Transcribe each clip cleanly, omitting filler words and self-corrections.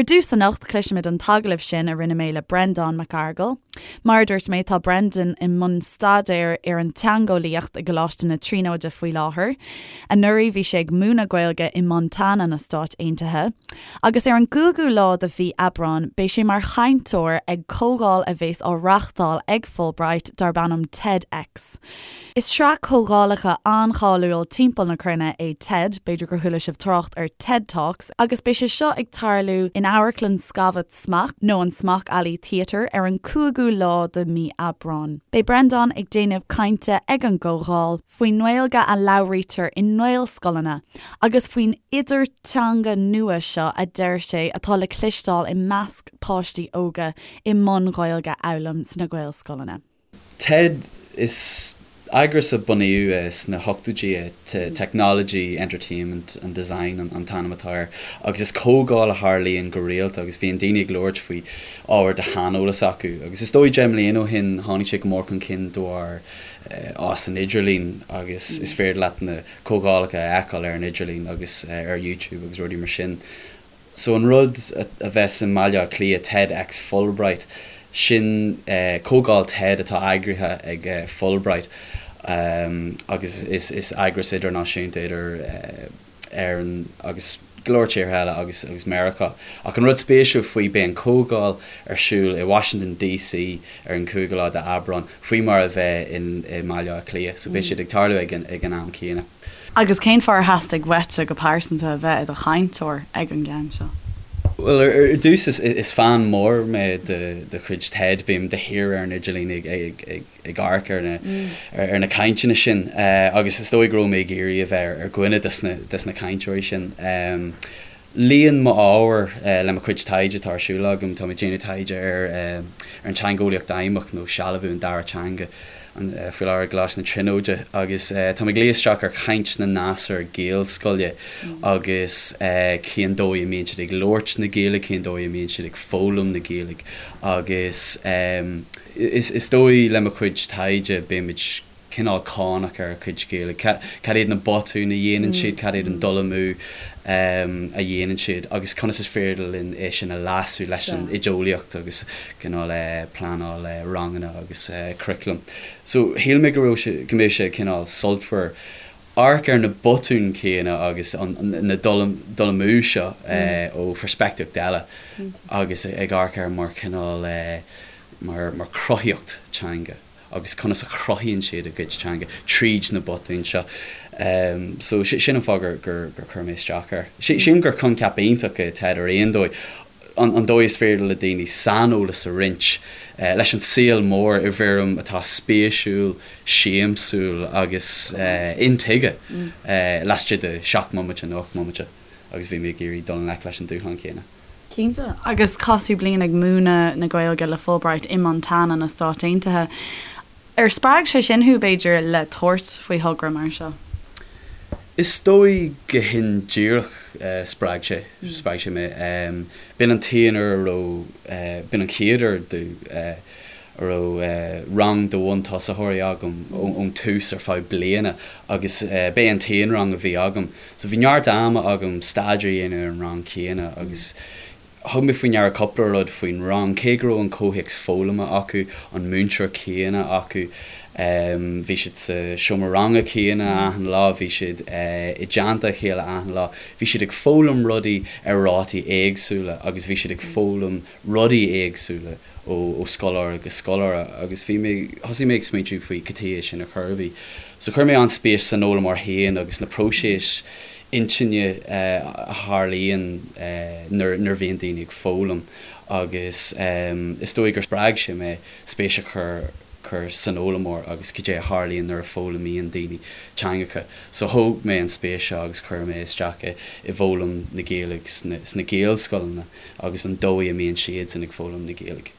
Ar dtús anocht, cloisfimid an t-agallamh sin a rinne mé le Breandán Mac Fhearghail. Mar a dúirt mé, tá Brendan i mbun staidéir ar an teangeolaíocht i gColáiste na Tríonóide faoi láthair. Anuraidh bhí sé ag múineadh Gaeilge i Montana na Stáit Aontaithe. Agus ar an gcúigiú lá de mhí Aibreáin beidh sé mar chainteoir ag comhdháil a bheas á reáchtáil ag Fulbright darb ainm TEDx. Is sraith comhdhálacha an-cháiliúil timpeall na cruinne é TED, b'fhéidir gur chuala sibh trácht ar TED Talks, agus beidh sé seo ag tarlú in Amharclann Scavat Smock, nó an Smock Alley Theatre, ar an 5ú lá de mí Aibreáin. Beidh Breandán ag déanamh cainte ag an gcomhdháil faoin nGaeilge a labhraítear i nGaelscoileanna agus faoin idirteanga nua seo a deir sé atá le cloisteáil i measc páistí óga i mbun Gaeilge a fhoghlaim sna Gaelscoileanna. TED, Is eagras a bunaíodh sna hochtóidí é, Technology, Entertainment and Design an t-ainm atá air, agus is comhdháil a tharlaíonn go rialta agus bíonn daoine ag labhairt faoi ábhar de shaineolas acu. Agus is dóigh 10 mbliana ó shin tháinig sé go mór chun cinn de bharr fhás an idirlín agus is féidir leat na comhdhálacha a fheiceáil ar an idirlíon agus ar YouTube agus rudaí mar sin. So an rud a bheas i mBaile Átha Cliath, TEDx Fulbright, sin comhdháil TED atá eagraithe ag Fulbright agus is eagras idirnáisiúnta idir Éirinn agus go leor tíortha eile agus agus Meiriceá. Ach an rud spéisiúil faoi, beidh an comhdháil ar siúl i Washington DC ar an cúigiú lá d'Aibreán, faoi mar a bheidh i mBaile Átha Cliath. So beidh siad ag tarlú ag an am céanna. Agus cén fáth ar theastaigh uaitse go pearsanta a bheith i do chainteoir ag an gceann seo? Bhuel, ar dtús, is fan mór mé de chuid TED, bím de shíor ar an idirlíon ag amharc ar na cainteanna sin agus is dóigh go raibh mé ag iarraidh a bheith ar dhuine des na cainteoirí sin. Luíonn m'ábhar le mo chuid taighde atá ar siúl agam. Tá mé ag déanamh taighde ar an teangeolaíocht fheidhmeach nó sealbhú an dara teanga faoi láthair i gColáiste na Tríonóide agus tá mé ag luí isteach ar chaint na ngasúr Gaelscoile agus cén dóigh a mbíonn siad ag labhairt na Gaeilge, cén dóigh a mbíonn siad ag foghlaim na Gaeilge agus is dóigh le mo chuid taighde bímid cineál cáinteach ar a gcuid Gaeilge. Cad iad na botúin a dhéanann siad, cad iad an dul amú a dhéanann siad agus conas is féidir linn é sin a leasú leis an oideolaíocht agus cineál pleanáil ranganna agus curriculum. So shíl mé go raibh sé, go mbeadh sé cineál sultmhar amharc ar na botúin céanna agus na dul amú seo ó pheirspictíocht eile agus ag amharc air mar chineál mar chruthaíocht teanga. agus conas a chruthaíonn siad a gcuid teanga tríd na botúin seo. So sin an fáth gur gur chuir mé isteach air. Sílim gur coincheap iontach é TED ar aon dóigh, an dóigh is féidir le daoine saineolas a roinnt leis an saol mór i bhfoirm atá spéisiúil, siamsúil agus intuigthe laistigh de 7 mbomaite nó 8 mbomaite agus bhí mé ag iarraidh dul i ngleic leis an dúshlán céanna. Cinnte. Agus chaith tú bliain ag múineadh na Gaeilge le Fulbright i Montana na Stáit Aontaithe. Ar spreag sé sin thú, b'fhéidir, le tabhairt faoi thogra mar seo? Is dóigh go hindíreach spreag sé, spreag sé mé. B'in an t-aon uair a raibh, b'in an chéad uair domh a raibh rang de bhuntosaitheoirí agam ón tús ar feadh bliana agus b'é an t-aon rang a bhí agam. So bhí neart ama agam staidéar a dhéanamh ar an rang céanna agus thug mé faoi ndeara cúpla rud faoin rang, cé go raibh an comhthéacs foghlama acu, an múinteoir céanna acu, bhí siad sa seomra ranga céanna achan lá, bhí siad i dteannta a chéile achan lá, bhí siad ag foghlaim rudaí ar rátaí éagsúla agus bhí siad ag foghlaim rudaí éagsúla. ó scoláire go scoláire agus bhí mé, thosaigh mé ag smaointiú faoi cad chuige sin ar chor ar bith. So chuir mé an-spéis san fhoghlaimeoir féin agus na próisis intinne a tharlaíonn nuair a bhíonn daoine ag foghlaim agus is dóigh gur spreag sé mé spéis a chur chur san fhoghlaimeoir agus cad é a tharlaíonn nuair a foghlaimíonn daoine teangacha. So thóg mé an spéis seo agus chuir mé isteach i bhfoghlaim na Gaeilge sna Gaelscoileanna. agus an dóigh a mbíonn siadsan ag foghlaim na Gaeilge.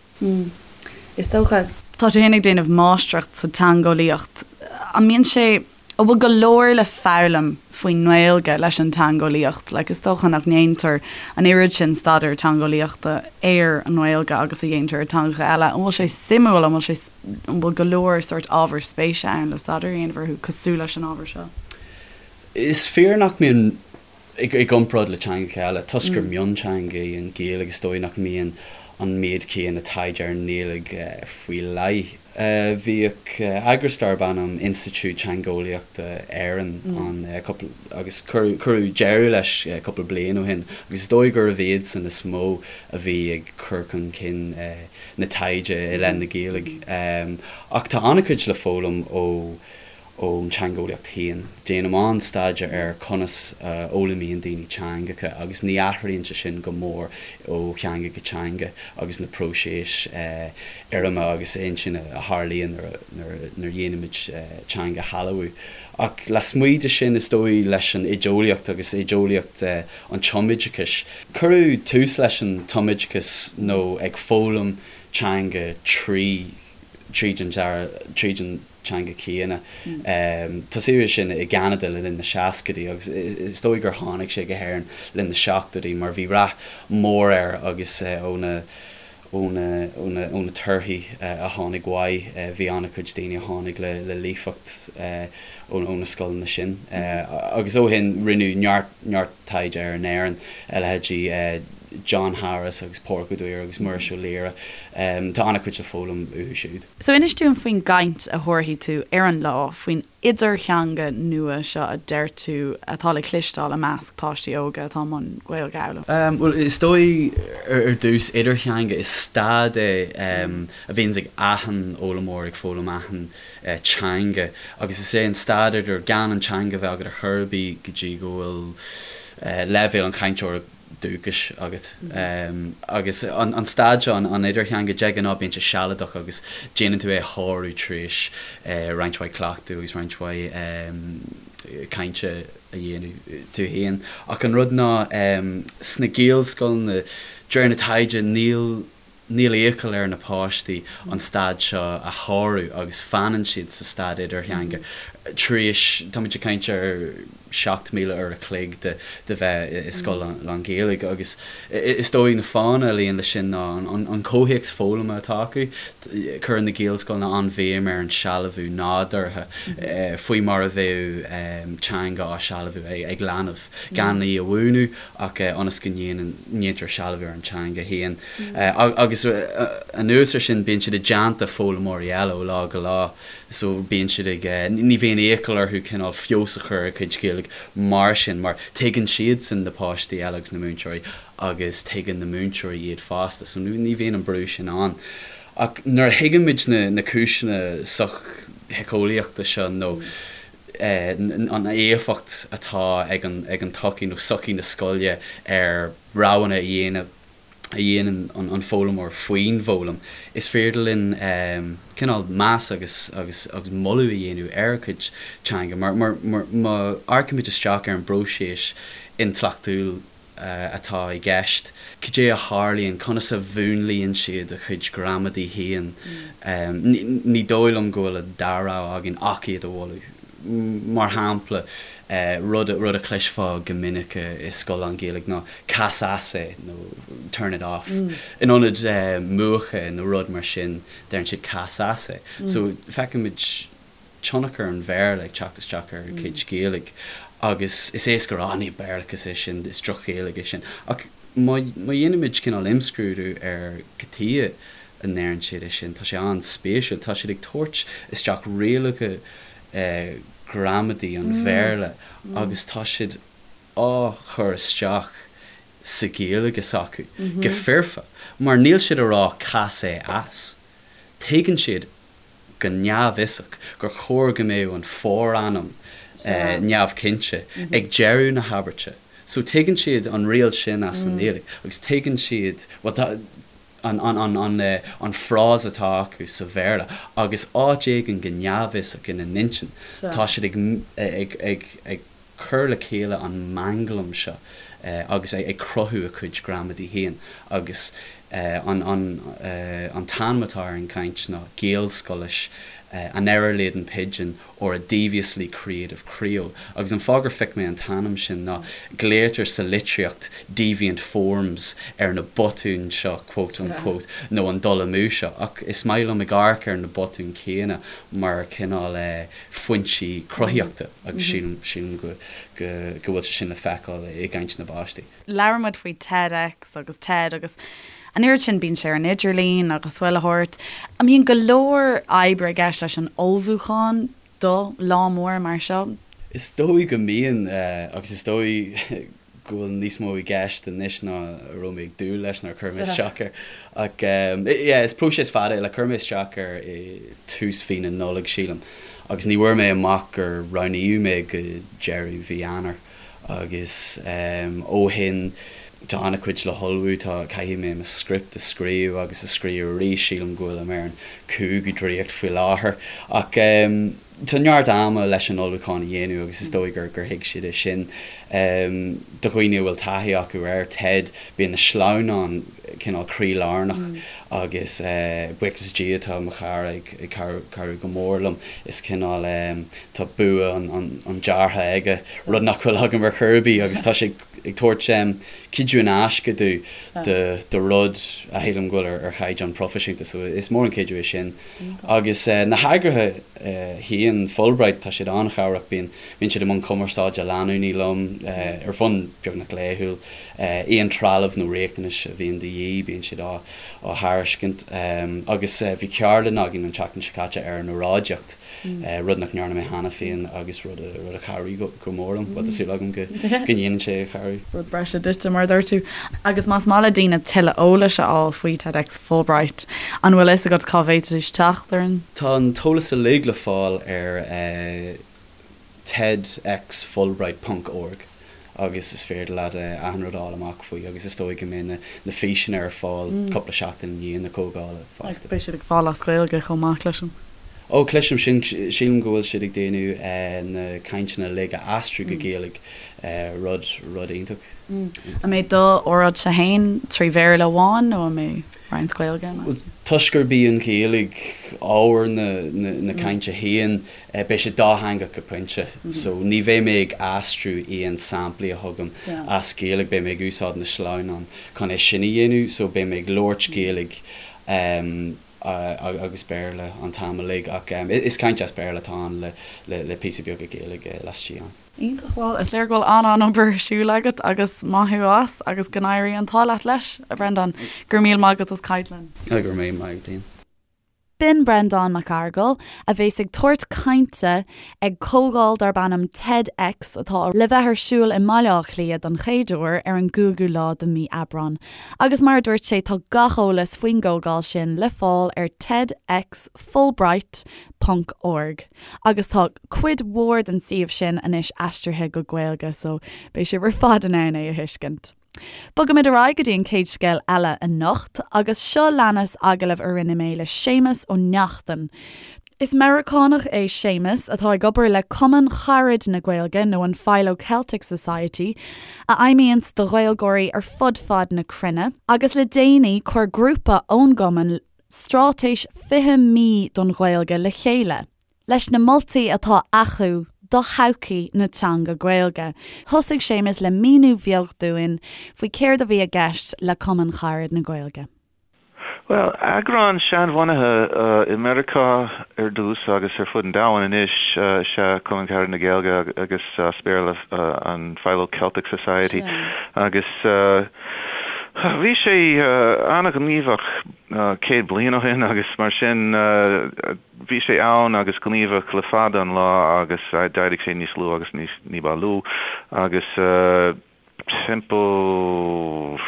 Is dócha. Tá tú féin ag déanamh máistreacht sa teangeolaíocht. An mbíonn sé, an bhfuil go leor le foghlaim faoin nGaeilge leis an teangeolaíocht? Like, is dócha nach ndéantar an oiread sin staidéar teangeolaíochta ar an nGaeilge agus a dhéantar ar teangacha eile. An bhfuil sé suimiúil, an bhfuil sé, an bhfuil go leor sórt ábhar spéise ann le staidéar a dhéanamh orthu cosúil leis an ábhar seo? Is fíor nach mbíonn. I gcomparáid le teangacha eile, toisc gur mionteanga í an Ghaeilge, is dóigh nach mbíonn an méid céanna taighde ar an nGaeilge faoi leith. Bhíodh eagras darb ainm Institiúid Teangeolaíochta Éireann ann cúpla, agus cuireadh deireadh leis cúpla bliain ó shin, agus is dóigh gurbh iadsan is mó a bhí ag cur chun cinn na taighde i leith na Gaeilge. Ach tá an-chuid le foghlaim ó ón teangeolaíocht féin. Déanaim an-staidéar ar conas a fhoghlaimíonn daoine teangacha agus ní athraíonn sé sin go mór ó theanga go teanga agus na próisis fhoirme agus intinne a tharlaíonn nuair a dhéanaimid teanga a shealbhú. Ach lasmuigh de sin, is dóigh leis an oideolaíocht agus oideolaíocht an tumoideachais, cuireadh tús leis an tumoideachas nó ag foghlaim teanga trí tríd an tríd an teanga chéanna. Tosaíodh é sin i gCeanada le linn na seascaidí agus is dóigh gur tháinig sé go hÉirinn le linn na seachtóidí mar bhí rath mór air agus ó na ó na ó na ó na torthaí a tháinig uaidh bhí an-chuid daoine a tháinig le le líofacht ó ó na scoileanna sin. Agus ó shin rinneadh neart neart taighde air in Éirinn, a leithéidí John Harris agus Pádraig Ó Duibhir agus Muiris Ó Laoire. Tá an-chuid le foghlaim uathu siúd. So inis dúinn faoin gcaint a thabharfaidh tú ar an lá, faoin idirtheanga nua seo a deir tú atá le cloisteáil i measc páistí óga atá i mbun Gaeilge a fhoghlaim. Bhuel, is dóigh ar dtús, idirtheanga, is staid é a bhíonns ag achan fhoghlaimeoir ag foghlaim achan teanga agus is é an staid idir gan an teanga a bheith agat ar chor ar bith go dtí go bhfuil leibhéal an chainteora dúchais agat. Agus an staid seo, an idirtheanga, de ghnáth bíonn sé sealadach agus déanann tú é a shárú tar éis roinnt mhaith cleachtadh agus roinnt mhaith cainte a dhéanamh tú féin. Ach an rud ná, sna Gaelscoileanna, de réir na taighde, níl Níl iachall ar na páistí an staid seo a shárú agus fanann siad sa staid idirtheanga tar éis, táimid ag caint ar 7,000 uair a chloig de de bheith i scoil lán-Ghaeilge agus is dóigh na fáthanna a luíonn leis sin ná an comhthéacs foghlama atá acu. Cuireann na Gaelscoileanna an-bhéim ar an sealbhú nádúrtha faoi mar a bheadh teanga á sealbhú ag leanbh, gan í a mhúineadh ach ionas go ndéanann, ndéantar sealbhú ar an teanga féin. Agus anuas ar sin, bíonn siad i dteannta foghlaimeoirí eile ó lá go lá so bíonn siad ag, ní bhíonn iachall orthu cineál feabhas a chur ar a gcuid Gaeilge mar sin mar tuigeann siadsan na páistí eile agus na múinteoirí agus tuigeann na múinteoirí iad fosta so ní bhíonn an brú sin ann. Ach nuair a thuigeann muid na na cúiseanna sochshíceolaíochta seo nó an éifeacht atá ag an ag an tsochaí nó sochaí na scoile ar roghanna a dhéanamh a dhéanann an foghlaimeoir faoin bhfoghlaim, is féidir linn cineál meas agus agus agus moladh a dhéanamh ar a gcuid teanga. Mar mar mar má amharcaimid isteach ar an bpróiseas intleachtúil atá i gceist, cad é a tharlaíonn, conas a mhúnlaíonn siad a gcuid gramadaí féin, ní dóigh liom go bhfuil an dara rogha againn ach iad a mholadh. Mar shampla, rud rud a chloisfeá go minic i scoil lán-Ghaeilge ná 'cas as é' nó 'turn it off'. In ionad 'múch é' nó rud mar sin, deireann siad 'cas as é'. So, feicimid tionchar an Bhéarla ag teacht isteach ar a gcuid Gaeilge agus is éasca a rá, 'ní Béarlachas é sin, is droch-Ghaeilge é sin'. Ach má dhéanaimid cineál imscrúdú ar cad chuige a ndeireann siad é sin, tá sé an-spéisiúil. Tá siad ag tabhairt isteach rialacha gramadaí an Bhéarla agus tá siad á chur isteach sa Ghaeilge s'acu go foirfe mar níl siad a rá 'cas é as'. Tuigeann siad go neamhfhiosach gur chóir go mbeadh an forainm neamhchinnte ag deireadh na habairte. So tuigeann siad an riail sin as an nGaeilge agus tuigeann siad, bhuel tá an, an, an, an, an frása atá acu sa Bhéarla agus áit éigin go neamhfhiosach ina n-intinn tá siad ag, ag, ag, ag cur le chéile an manglam seo agus ag cruthú a cuid gramadaí féin agus an an t-ainm atá ar an gcaint ná Gaelscoilis. An Error-Laden Pidgin or a Deviously Creative Creole. Agus an fáth gur phioc mé an t-ainm sin ná glaotar sa litríocht deviant forms ar na botúin seo, quote unquote, nó an dul amú seo. Ach is maith liom ag amharc ar na botúin céanna mar cineál foinsí cruthaíochta agus sílim, sílim go, go, go bhfuil sé sin le feiceáil i gcaint na bpáistí. Labhair muid faoi TEDx agus TED agus an oiread sin, bíonn sé ar an idirlíon agus chuile shórt. An mbíonn go leor oibre i gceist leis an ullmhúchán do lá mór mar seo? Is dóigh go mbíonn, agus is dóigh go bhfuil níos mó i gceist anois ná a raibh mé ag dúil leis nuair a chuir mé isteach air. Ach yeah, is próiseas fada é, like chuir mé isteach air i tús mhí na Nollag, sílim, agus ní bhfuair mé amach gur roghnaíodh mé go deireadh mhí Eanáir. Agus ó shin tá an-chuid le hullmhú, tá, caithfidh mé mo script a scríobh agus a scríobh arís, sílim go bhfuilim ar an cúigiú dréacht faoi láthair. Ach tá neart ama leis an ullmhúchán a dhéanamh agus is dóigh gur thuig siad é sin. Do dhaoine a bhfuil taithí acu ar TED, bíonn na sleamhnáin cineál croílárnach agus buíochas le Dia tá mo chara ag cabhrú go mór liom, is cineál. Tá bua an deartha aige, rud nach bhfuil agam ar chor ar bith, agus tá sé ag tabhairt cuidiú in aisce do rud a shílim go bhfuil ar chaighdeán proifisiúnta, so is mór an cuidiú é sin. Agus na heagraithe féin, Fulbright, tá siad an-chabhrach, bíonn siad i mbun cumarsáide leanúnaí liom ar bhonn beagnach laethúil, aon trealamh nó riachtanais a bhíonn de dhíth, bíonn siad á thairiscint. Agus bhí ceardlann againn an tseachtain seo caite ar an óráidíocht. rud nach ndearna mé cheana féin agus rud a chabhraigh go mór liom. Bhuel, tá súil agam go ndéanann sé cabhrú. Rud breise duitse, mar a dúirt tú. Agus más maith le daoine tuilleadh eolais a fháil faoi TEDx Fulbright, an bhfuil a fhios agat cá bhféadfaidís teacht ar an. Tá an t-eolas uilig le fáil ar TEDx Fulbright ponc org. agus is féidir leat achan rud a fháil amach faoi agus is dóigh go mbeidh na físeanna ar fáil cúpla seachtain i ndiaidh na comhdhála fosta. Agus beidh siad ag fáil as Gaeilge chomh maith, cloisim. Ó, cloisim sin, sílim go bhfuil siad ag déanamh na cainteanna uilig a aistriú go Gaeilge, rud, rud iontach. An mbeidh do óráidse féin trí Bhéarla amháin nó an mbeidh roinnt Gaeilge ann? Bhuel, toisc gurb í an Ghaeilge ábhar na cainte féin, Beidh sé dátheangach go pointe, so ní bheidh mé ag aistriú aon samplaí a thugaim as Gaeilge, beidh mé ag úsáid na sleamhnán chun é sin a dhéanamh, so beidh mé ag labhairt Gaeilge agus Béarla an t-am uilig, ach is caint as Béarla atá ann le píosa beag Gaeilge laistigh ann. Iontach, bhuel is léir go bhfuil an-an-obair ar siúl agat agus maith thú as agus go n-éirí an t-ádh leat leis, a Bhrendáin. Go raibh míle maith agat as caint linn. Go raibh míle maith agat, Liam. B'in Breandán Mac Fhearghail, a bheas ag tabhairt cainte ag comhdháil darb ainm TEDx atá le bheith ar siúl i mBaile Átha Cliath don chéad uair ar an gcúigiú lá de mhí Aibreán. Agus mar a dúirt sé tá gach eolas faoin gcomhdháil sin le fáil ar TEDxFulbright ponc org agus tá cuid mhór den suíomh sin anois aistrithe go Gaeilge so beidh sibh ar fad in ann é a thuiscint. Bogaimid ar aghaidh go dtí an chéad scéal eile anocht agus seo leanas agallamh a rinne mé le Séamus Ó Neachtain. Is Meiriceánach é Séamus atá ag obair le Cumann Charad na Gaeilge nó an Philo Celtic Society a fheidhmíonns do Ghaeilgeoirí ar fud fad na cruinne agus le déanaí chuir grúpa ón gcumann straitéis 20 mí don Ghaeilge le chéile. Leis na moltaí atá acu do thodhchaí na teanga Gaeilge. Thosaigh Séamus le míniú bheag dúinn faoi céard a bhí i gceist le Cumann Charad na Gaeilge. Bhuel, eagrán seanbhunaithe i Meiriceá ar dtús agus ar fud an domhain anois is ea Cumann Carad na Gaeilge agus as Béarla an Philo Celtic Society agus bhí sé an-ghníomhach 100 bliain ó shin agus mar sin Bhí sé ann agus gníomhach le fada an lá agus d'éirigh sé níos lú agus ní ba lú agus timpeall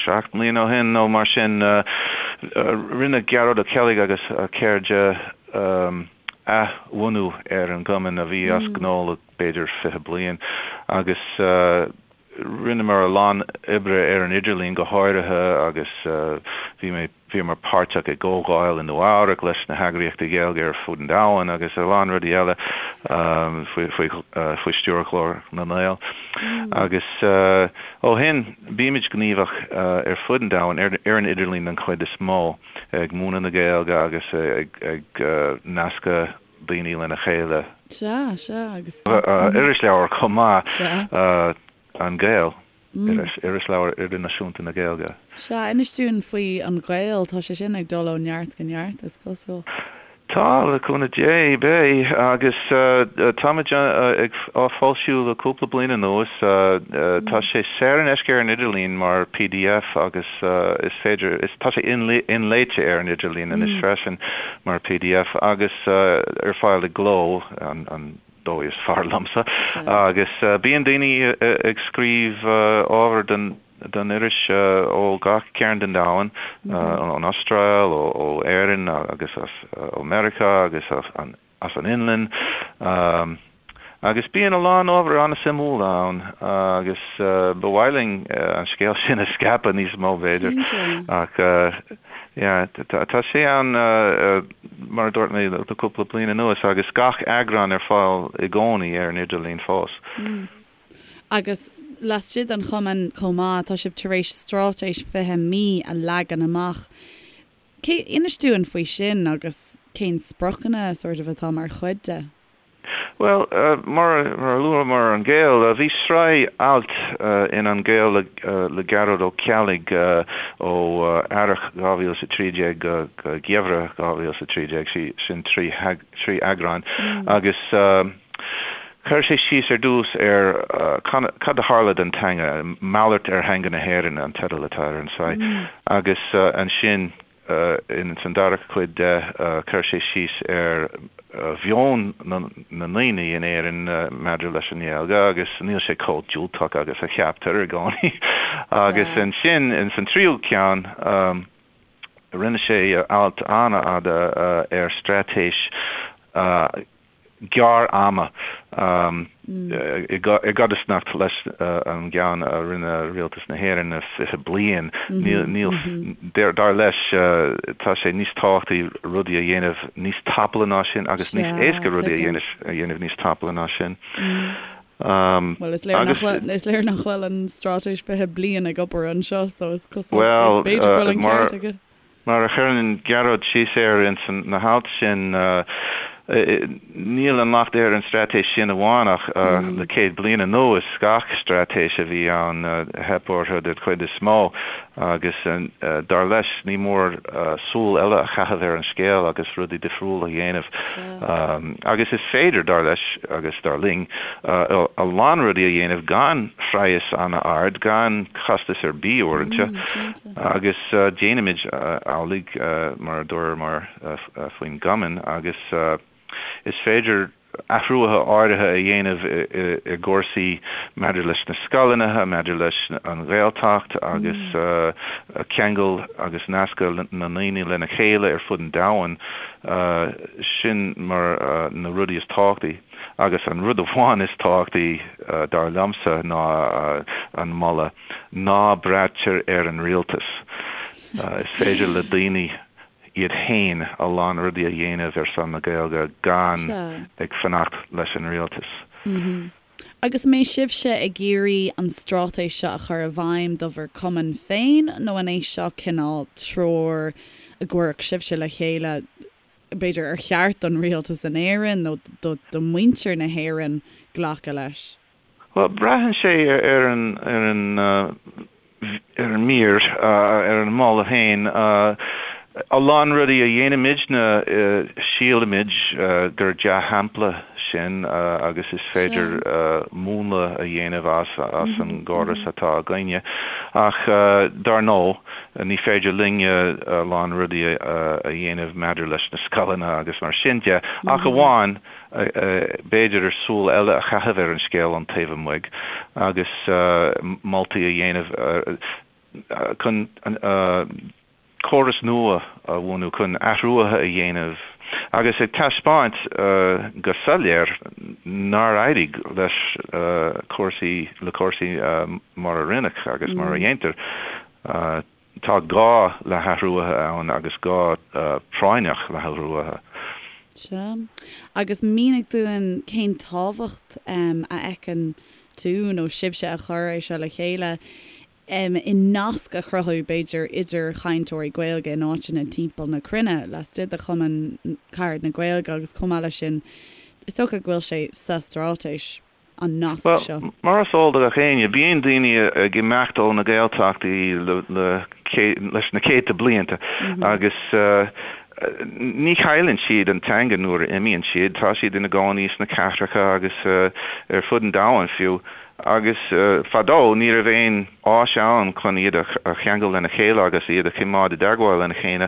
7 mbliana ó shin nó mar sin rinne Gearóid Ó Ceallaigh agus a chairde athbhunú ar an gcumann a bhí as gnó le b'fhéidir 20 bliain agus. Rinneamar a lán oibre ar an idirlíon go háirithe agus bhí mé, bhíomar páirteach i gcomhdháil i Nua Eabhrac leis na heagraíochtaí Gaeilge ar fud an domhain agus a lán rudaí eile faoi, faoi, faoi stiúir Ghlór na nGael. Agus ó shin bímid gníomhach ar fud an domhain, ar, ar an idirlíon den chuid is mó, ag múineadh na Gaeilge agus ag, ag nascadh daoine lena chéile. Sea, sea, agus. Irisleabhar chomh maith, Sea. An Gael, Irisleabhar Idirnáisiúnta na Gaeilge. Sea, inis dúinn faoi An Gael, tá sé sin ag dul ó neart go neart, is cosúil. Tá, le cúnamh Dé, beidh, agus táimid ag á foilsiú le cúpla bliain anuas. Tá sé saor in aisce ar an idirlíon mar pdf agus is féidir, tá sé inléite ar an idirlíon anois freisin. mar pdf agus ar fáil i gcló, an dóigh is fearr liomsa, agus bíonn daoine ag scríobh ábhar don iris ó gach cearn den domhan, ón Astráil, ó Éirinn agus as ó Meiriceá agus as an Fhionlainn. Agus bíonn a lán ábhar an-suimiúil ann agus ba mhaith linn an scéal sin a scaipeadh níos mó b'fhéidir. Cinnte. Ach yeah, tá sé ann mar a dúirt mé le cúpla bliain anuas agus gach eagrán ar fáil i gcónaí ar an idirlíon fós. Agus laistigh den chumann chomh maith, tá sibh tar éis straitéis 20 mí a leagan amach. Cé, inis dúinn faoi sin agus cén spriocanna sort of atá mar chuid de? Bhuel, mar a luamar An Gael, bhí sraith alt in An Gael le Gearóid Ó Ceallaigh ó Earrach 2013 go Geimhreadh 2013, sin trí eagrán, agus chuir sé síos ar dtús ar cad a tharla don teanga, Malairt ar Theanga na hÉireann an teideal atá ar an tsraith, agus ansin Ins an dara cuid de, chuir sé síos ar mheon na ndaoine in Éirinn maidir leis an nGaeilge agus níl sé chomh diúltach agus a cheaptar i gcónaí. Agus ansin, ins an tríú ceann, rinne sé alt an-fhada ar straitéis gearr-ama i gcodarsnacht leis an gceann a rinne Rialtas na hÉireann 20 bliain. Níl, dar leis, tá sé níos tábhachtaí rudaí a dhéanamh níos tapúla ná sin agus níos éasca rudaí a dhéanamh níos tapúla ná sin. Bhuel, is léir nach bhfuil, is léir nach bhfuil an straitéis 20 bliain ag obair anseo so is cosúil b'fhéidir go bhfuil an ceart aige. Mar a chuireann Gearóid síos air ins na hailt sin, níl an locht ar an straitéis sin amháin ach le 100 bliain anuas, gach straitéis a bhí ann, theip orthu den chuid is mó agus dar leis ní mór súil eile a chaitheamh ar an scéal agus rudaí difriúla a dhéanamh. Agus is féidir, dar leis agus dar linn, a lán rudaí a dhéanamh gan phraghas an-ard, gan costas ar bith uaireanta. Agus déanaimid amhlaidh, mar a dúramar faoin gcumann, agus is féidir athruithe áirithe a dhéanamh i gcúrsaí maidir leis na scoileanna, maidir leis an Ghaeltacht agus ceangal agus nascadh na ndaoine lena chéile ar fud an domhain, sin mar na rudaí is tábhachtaí. Agus an rud amháin is tábhachtaí, dar liomsa, ná an moladh. Ná braitear ar an rialtas. Is féidir le daoine iad féin a lán rudaí a dhéanamh ar son na Gaeilge gan ag fanacht leis an rialtas. Agus an mbeidh sibhse ag iarraidh an straitéis seo a chur i bhfeidhm do bhur cumann féin nó an é seo cineál treoir a gcuirfeadh sibhse le chéile b'fhéidir ar cheart don rialtas in Éirinn nó do mhuintir na hÉireann glacadh leis? Bhuel, braitheann sé ar an, ar an, ar an mír, ar an moladh féin. A lán rudaí a dhéanaimidne, sílimid gur dea-shampla sin agus is féidir múnla a dhéanamh as, as an gcóras atá againne. Ach dar ndóigh, ní féidir linne a lán rudaí a dhéanamh maidir leis na scoileanna agus mar sin de, ach amháin b'fhéidir súil eile a chaitheamh ar an scéal ón taobh amuigh agus moltaí a dhéanamh chun. córas nua a bhunú, chun athruithe a dhéanamh agus ag taispeáint go soiléir nár éirigh leis cúrsaí, le cúrsaí mar a rinneadh agus mar a dhéantar. Tá gá le hathruithe ann agus gá práinneach le hathruithe. Sea. Agus mínigh dúinn cén tábhacht a fheiceann tú nó sibhse a chuir é seo le chéile i nasc a chruthú, b'fhéidir, idir chainteoirí Gaeilge in áiteanna timpeall na cruinne, laistigh de Chumann Carad na Gaeilge agus chomh maith leis sin, is dócha go bhfuil sé sa straitéis. an nasc seo. Bhuel, mar is eol do gach éinne, bíonn daoine ag imeacht ó na Gaeltachtaí leis na céadta blianta agus ní chailleann siad an teanga nuair a imíonn siad, tá siad ina gcónaí sna cathracha agus ar fud an domhain fiú. Agus fadó ní raibh aon áis ann chun iad a cheangal lena chéile agus iad a choimeád i dteagmháil lena chéile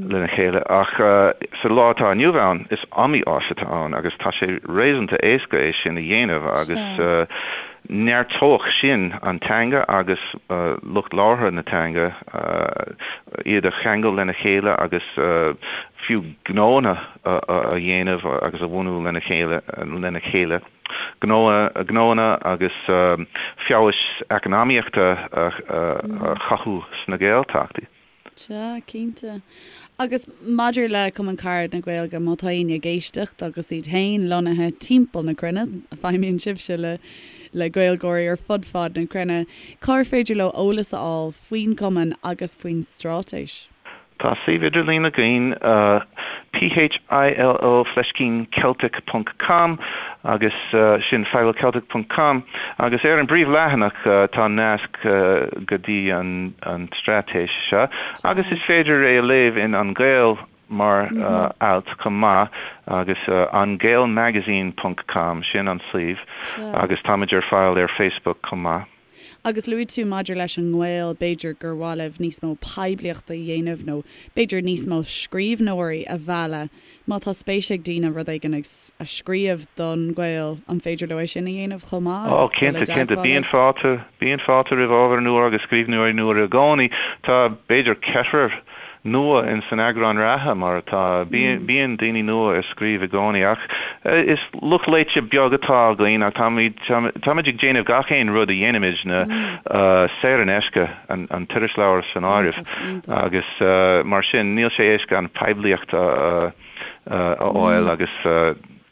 lena chéile ach sa lá atá inniu ann is iomaí áis atá ann agus tá sé réasúnta éasca é sin a dhéanamh agus neartódh sin an teanga agus lucht labhartha na teanga, iad a cheangal lena chéile agus fiú gnóanna a dhéanamh agus a bhunú lena chéile lena chéile. gnóanna agus feabhas eacnamaíochta a chothú sna Gaeltachtaí. Sea, cinnte. Agus maidir le Cumann Carad na Gaeilge, má tá éinne ag éisteacht agus iad féin lonnaithe timpeall na cruinne, feidhmíonn sibhse le le Gaeilgeoirí ar fud fad na cruinne, cár féidir leo eolas a fháil faoin gcumann agus faoin straitéis? Tá suíomh idirlín againn, PHILO fleiscín Celtic ponc com agus sin philoceltic ponc com agus ar an bpríomhleathanach tá nasc go dtí an straitéis seo agus is féidir é a léamh in An Gael mar alt chomh maith agus angaelmagazine ponc com sin an suíomh agus táimid ar fáil ar Facebook chomh maith. Agus luaigh tú maidir leis an nGael, b'fhéidir gur mhaith libh níos mó poiblíochta a dhéanamh nó b'fhéidir níos mó scríbhneoirí a mhealladh. Má tá spéis ag daoine rud éigin a scríobh don Ghael, an féidir leo é sin a dhéanamh chomh maith agus dul i cinnte, cinnte. dteagmháil Bíonn libh? fáilte, bíonn fáilte roimh ábhar nua agus scríbhneoirí nua i gcónaí. Tá b'fhéidir ceathrar nua in san eagrán reatha, mar atá. Bíonn daoine nua ag scríobh i gcónaí ach is lucht léite beag atá againn ach táimid táimid ag déanamh gach aon rud a dhéanaimidne saor in aisce, an t-irisleabhar san áireamh, agus mar sin níl sé éasca an poiblíocht a fháil agus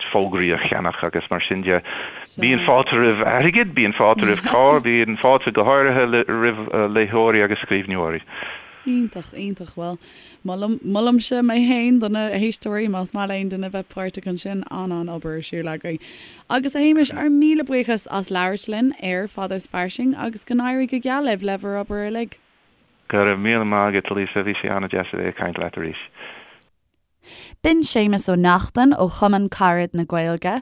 fógraí a cheannach agus mar sin de. Bíonn fáilte roimh airgead, bíonn fáilte roimh cabhair, bíonn fáilte go háirithe roimh léitheoirí agus scríbhneoirí. Iontach, iontach. Bhuel, molaim, molaimse mé fhéin do na héisteoirí, más maith le aon duine bheith páirteach ansin, an-an-obair ar siúl agaibh. Agus a Shéamais, ár míle buíochas as labhairt linn ar Fada is Fairsing agus go n-éirí go geal libh le bhur obair uilig. Go raibh míle maith agat, Lisa, bhí sé an-deas a bheith ag caint leat arís. B'in Séamus Ó Neachtain ó Chumann Carad na Gaeilge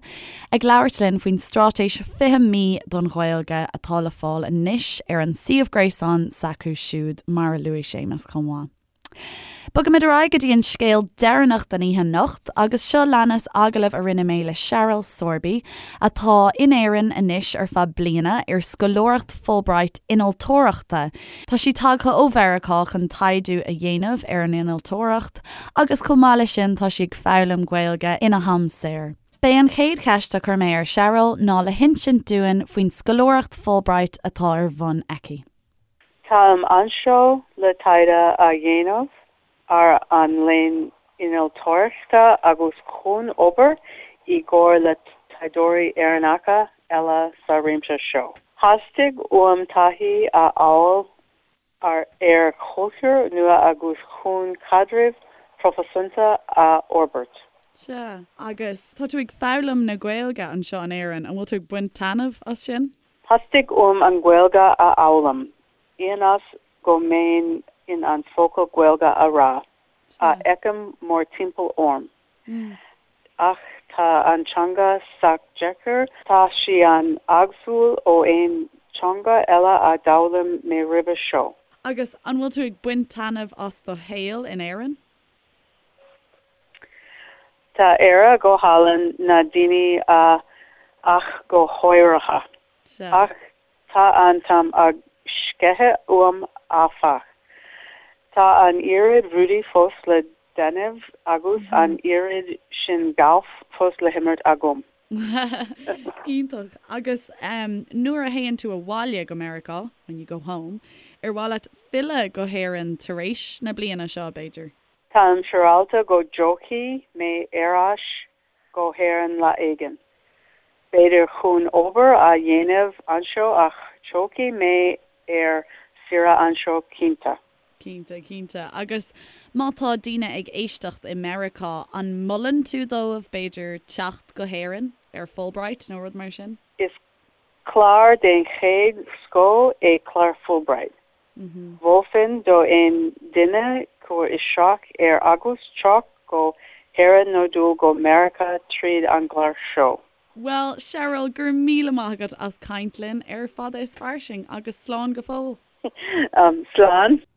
ag labhairt linn faoin straitéis 20 mí don Ghaeilge atá le fáil anois ar an suíomh gréasáin s'acu siúd, mar a luaigh Séamus chomh maith. Bogaimid ar aghaidh go dtí an scéal deireanach den oíche anocht agus seo leanas agallamh a rinne mé le Cheryl Sorby atá in Éirinn anois ar feadh bliana ar scoláireacht Fulbright innealtóireachta. Tá sí tagtha ó Mheiriceá chun taighde a dhéanamh ar an innealtóireacht agus chomh maith leis sin tá sí ag foghlaim Gaeilge ina ham saor. B'é an chéad cheist a chuir mé ar Cheryl ná le hinsint dúinn faoin scoláireacht Fulbright atá ar bhun aici. Táim anseo le taighde a dhéanamh ar an léann innealtóireachta agus chun obair i gcomhar le taighdeoirí Éireannacha eile sa réimse seo. Theastaigh uaim taithí a fháil ar ar chultúr nua agus chun caidrimh phroifisiúnta a fhorbairt. Sea, agus tá tú ag foghlaim na Gaeilge anseo in Éirinn, an bhfuil tú ag baint taitneamh as sin? Theastaigh uaim an Ghaeilge a fhoghlaim, ionas go mbeinn in ann focal Gaeilge a rá, a fheicim mórthimpeall orm. Ach tá an teanga sách deacair, tá sí an-éagsúil ó aon teanga eile a d'fhoghlaim mé roimhe seo. Agus an bhfuil tú ag baint taitneamh as do shaol in Éirinn? Tá Éire go hálainn, na daoine ach go háirithe. Ach tá an t-am ag sceitheadh uaim áfach. Tá an oiread rudaí fós le déanamh agus an oiread sin gailf fós le himirt agam. Iontach. Agus nuair a théann tú abhaile go Meiriceá, when you go home, ar mhaith leat filleadh go hÉirinn tar éis na bliana seo, b'fhéidir? Táim siúráilte go dtiocfaidh mé ar ais go hÉirinn lá éigin. B'fhéidir chun obair a dhéanamh anseo ach tiocfaidh mé ar saoire anseo cinnte. Cinnte, cinnte. Agus má tá daoine ag éisteacht i Meiriceá, an molann tú dóibh, b'fhéidir, teacht go hÉirinn ar Fulbright nó rud mar sin? Is clár den chéad scoth é clár Fulbright. Mholfainn do aon duine cur isteach air agus teacht go hÉirinn nó dul go Meiriceá tríd an gclár seo. Bhuel, Cheryl, go raibh míle maith agat as caint linn ar Fada is Fairsing agus slán go fóill. Slán.